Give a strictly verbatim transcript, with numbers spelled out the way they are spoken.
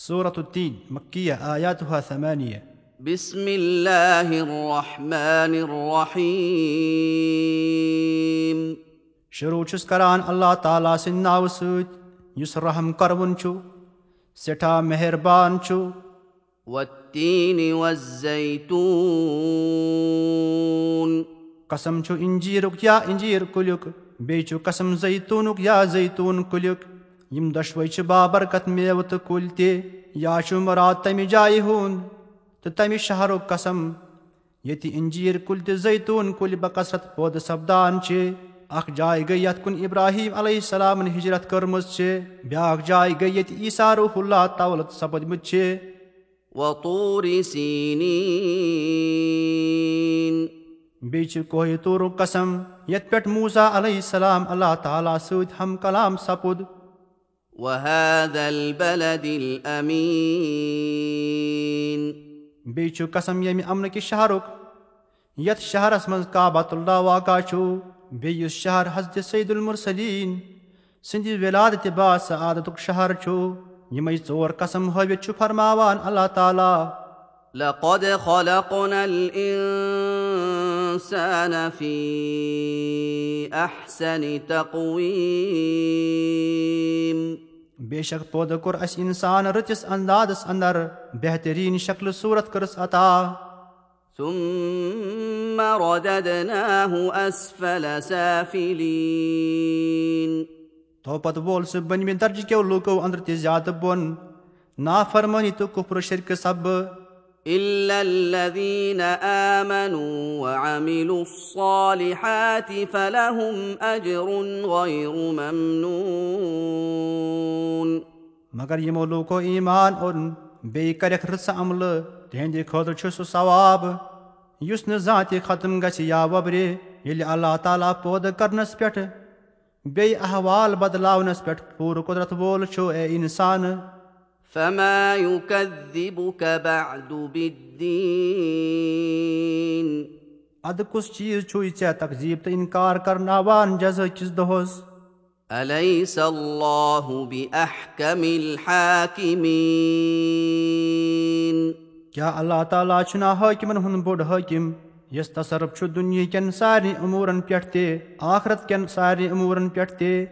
سورة التين، مكية، آياتها ثمانية۔ بسم الله الرحمن الرحيم۔ شروع چھُس کران اللہ تعالیٰ سٕنٛدِ ناوٕ سۭتۍ، یُس رحم کرون چھُ، سٮ۪ٹھاہ مہربان چھُ۔ والتين والزيتون۔ قسم چھُ انجیرُک یا انجیر کُلیُک، بیٚیہِ چھُ قسم زیتونُک یا زیتون کُلیُک۔ یِم دۄشوے چھِ بابرکت میوٕ تہٕ کُلۍ تہِ۔ یا چھُ مراد تمہِ جایہِ ہُنٛد تہٕ تمہِ شہرُک قسم، ییٚتہِ انجیر کُلۍ تہٕ زیتون کُلۍ بکثرت پٲدٕ سپدان چھِ۔ اکھ جاے گٔے، یتھ کُن ابراہیم علیہ السلامن ہجرت کٔرمٕژ چھِ، بیاکھ جاے گٔے، ییٚتہِ عیسیٰ روح اللہ تولد سپدمٕتۍ چھِ۔ وطور سينين۔ بیٚیہِ چھُ کوہِ طورُک قسم، یتھ پٮ۪ٹھ موسیٰ علیہ السلام اللہ تعالیٰ سۭتۍ ہم کلام سپُد۔ وهذا البلد الأمين۔ بیٚیہِ چھُ قسم ییٚمہِ امنہٕ کہِ شہرُک، یتھ شہرس منٛز کعبۃ اللہ واقع چھُ، بیٚیہِ یُس شہر حضرت سید المرسلین سٕنٛدِ ولادتِ با سعادتُک شہر چھُ۔ یِمے ژور قسم ہٲوِتھ چھُ فرماوان اللہ تعالیٰ۔ لقد خلقنا الإنسان في أحسن تقويم۔ بے شک پٲدٕ کوٚر اسہِ انسان رٕژِس اندازس اندر، بہترین شکل صورت کٔرٕس عطا۔ ثم رددناه أسفل سافلين۔ تو پتہٕ وول سُہ بٔنمہِ درجہٕ کیو لوٗکو اندر تہِ زیادٕ بۄن، نافرمٲنی تہٕ کفر و شرکہٕ سببہٕ۔ إلا الذين آمنوا وعملوا الصالحات فلهم أجر غير ممنون۔ مگر یِمو لوٗکو ایمان اوٚن، بیٚیہِ کَرٮ۪کھ رٕژٕ عملہٕ، تِہنٛدِ خٲطرٕ چھُ سُہ ثواب، یُس نہٕ زانٛہہ تہِ ختم گژھِ یا وۄبرِ، ییٚلہِ اللہ تعالیٰ پٲدٕ کرنس پٮ۪ٹھ بیٚیہِ احوال بدلاونس پٮ۪ٹھ پوٗرٕ قدرت وول چھُ۔ اے انسان! فما يكذبك بعد بالدين۔ ادٕ کُس چیٖز چھُے ژےٚ تکذیٖب تہٕ انکار کرناوان جزا کِس دۄہس؟ أليس الله بأحكم الحاكمين؟ کیٛاہ اللہ تعالیٰ چھُنہ حٲکمن ہُنٛد بوٚڑ حٲکم، یس تصرف چھُ دُنیہٕ کٮ۪ن سارنٕے امورن پٮ۪ٹھ تہِ، آخرت کٮ۪ن سارنٕے امورن پٮ۪ٹھ تہِ؟